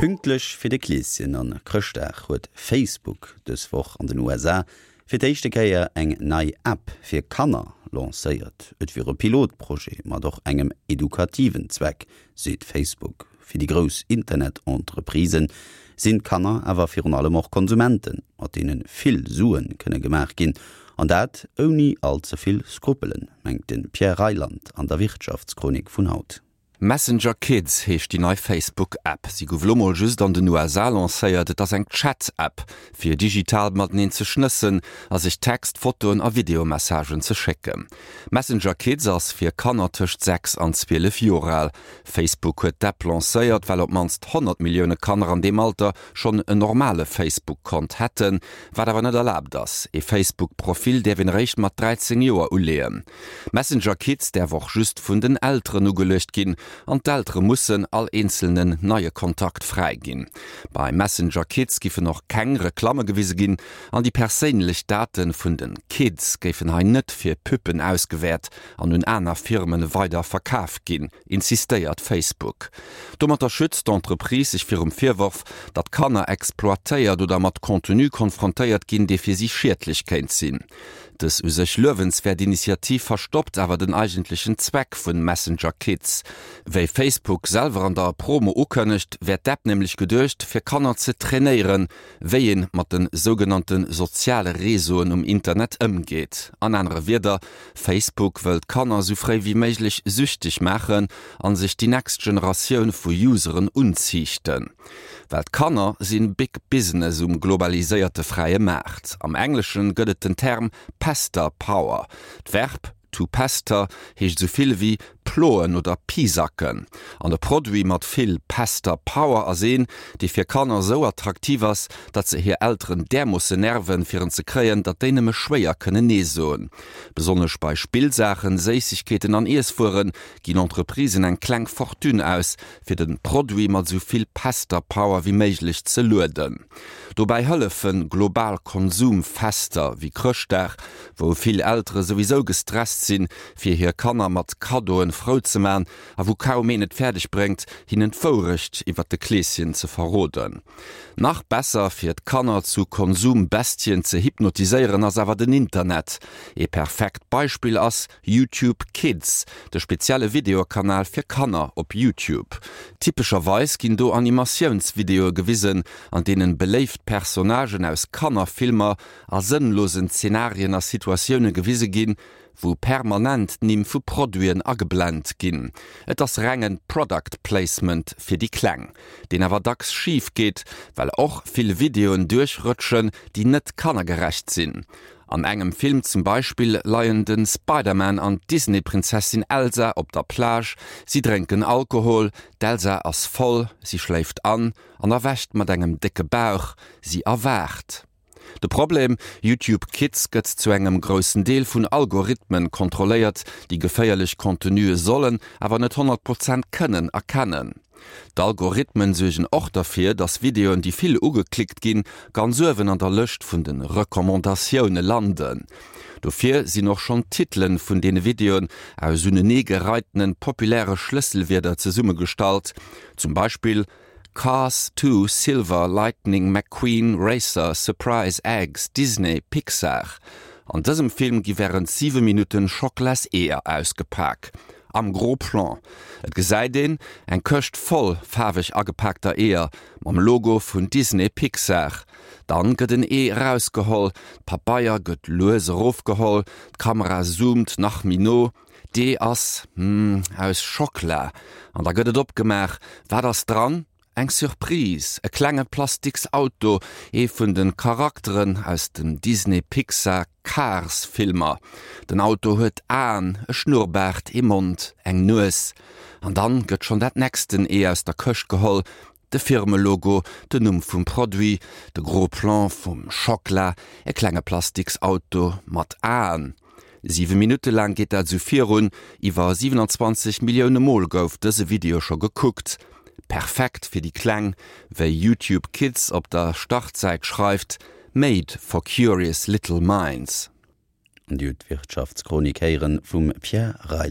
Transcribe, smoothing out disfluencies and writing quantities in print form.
Pünktlech fir de Kleeschen an Chrëschtdag huet Facebook dës Woch an den USA fir d'éischte Kéier eng nei App fir Kanner lancéiert. Et wier e Pilotprojet mat och engem edukativen Zweck, seet Facebook. Fir déi grouss Internet-Entreprisë sinn d'Kanner awer virun allem och Konsumenten, mat deene vill Sue kënne gemaach ginn. An dat ouni all ze vill Skrupelen, mengt de Pierre Reyland an der Wirtschaftschronik vun haut. Messenger Kids heescht déi nei Facebook-App. Si gouf elo mol just an den USA lancéiert. Et ass eng Chat-App, fir digital mateneen ze schnëssen a sech Text-, Fotoen a Videomessagen ze schécken. Messenger Kids ass fir Kanner tëscht 6 an 12 Joer al. Facebook huet d'App lancéiert, well op d'mannst 100 Millioune Kanner an deem Alter schonn en normale Facebook-Kont hätten, wat awer net erlaabt ass. Ee Facebook-Profil däerf een eréischt mat 13 Joer uleeën. Messenger Kids däerf och just vun den Elteren ugeluecht ginn an d'Eltere mussen all eenzelnen neie Kontakt fräiginn. Bei Messenger Kids giffen och keng Reklamme gewise ginn an déi perséinlech Date vun de Kids géifen hei net fir Pubben ausgewäert an un aner Firme weider verkaf ginn, insistéiert Facebook. Domatter schützt d'Entreprise sech virum Virworf, datt Kanner exploitéiert oder mat Contenu konfrontéiert ginn, dee fir si schiedlech kéint sinn. Dës u sech luewenswäert Initiativ verstoppt awer den eigentlechen Zweck vun Messenger Kids. Wéi Facebook selwer an der Promo ukënnegt, wär d'App nämlech geduecht, fir Kanner ze trainéieren, wéi een mat de sougenannte soziale Réseauen um Internet ëmgeet. An anere Wierder, Facebook wëll d'Kanner sou fréi wéi méiglech süchteg maachen an sech déi next Generatioun vu Useren unziichten. Well d'Kanner sinn Big Business um globaliséierte fräie Maart. Am Engleschen gëtt et den Term Pester Power. D'Verb to pester heescht esou vill ewéi ploen oder pisacken. An e Produit mat vill Pester Power ass een, dee fir Kanner esou attraktiv ass, datt se hir Elteren därmoosse nerven, fir en ze kréien, datt déi nëmme schwéier kënnen Nee soen. Besonnesch bei Spillsaachen, Séissegkeeten an Iesswuere ginn Entreprisen eng kleng Fortune aus, fir den Produit mat esou vill Pester Power wéi méiglech ze lueden. Dobäi hëllefen global Konsumfester wéi Chrëschtdag, wou vill Eltere souwisou gestresst sinn, fir hir Kanner mat Kaddoen frou ze man a wou kaum een et fäerdeg bréngt, hinnen d'Wourecht iwwert de Kleeschen ze verroden. Nach besser fir d'Kanner zu Konsumbestien ze hypnotiséieren ass awer den Internet. Ee perfekt Beispill ass YouTube Kids, de spezielle Videokanal fir Kanner op YouTube. Typescherweis ginn do Animatiounsvideoe gewisen, an deenen beléift Personnagen aus Kannerfilmer a sënnlosen Zenarien a Situatioune gewise ginn, wou permanent d'Nimm vu Produiten ageblent ginn. Et ass rengen Product Placement fir déi Kleng, deen awer dacks schif geet, well och vill Videoen duerchrëtschen, déi net kannergerecht sinn. An engem Film zum Beispill leien de Spider-Man an d'Disney-Prinzessin Elsa op der Plage, si drénken Alkohol, d'Elsa ass voll, si schléift an an erwächt mat engem décke Bauch, si erwaacht. De Problem, YouTube Kids gëtt zu engem groussen Deel vun Algorithmen kontrolléiert, déi geféierlech Contenue sollen, awer net 100 Prozent kënnen erkennen. D'Algorithmen suergen och derfir, dass Videoen, déi vill ugeklickt ginn, ganz uewen an der Lëscht vun de Recommandatioune landen. Dofir sinn och schonn d'Titelen vun deene Videoen aus uneneegereitene populäre Schlësselwierder zesummegestallt, zum Beispill Cars 2 Silver Lightning McQueen Racer Surprise Eggs Disney Pixar. An dësem Film gi wärend 7 Minutten Schocklas-Eeër ausgepak. Am Gros Plan. Et gesäit een eng Këscht voll faarweg agepaakter Eeër mam Logo vun Disney Pixar. Dann gëtt en Ee erausgeholl, d'Pabeier gëtt lues erofgeholl, d'Kamera zoomt nach méi no, d'Ee ass, hm, aus Schockla. An da gëtt et opgemaach. Wat ass dran? Eng Surprise, e klenge plastiks Auto, ee vun de Charakteren aus den Disney-Pixar Cars Filmer. Den Auto huet Aen, e Schnurrbaart, ee Mond, eng Nues. An dann gëtt schonn dat nexten Ee aus der Këscht geholl, de Firmelogo, den Numm vum Produit, de Gros Plan vum Schockla, e klenge plastiks Auto mat Aen. 7 Minutte laang geet dat esou virun. Iwwer 27 Millioune Mol gouf dëse Video scho gekuckt. Perfekt fir déi Kleng, wéi YouTube Kids op der Startsäit schreift, Made for curious little minds. An Dir hutt d'Wirtschaftschronik héieren vum Pierre Reyland.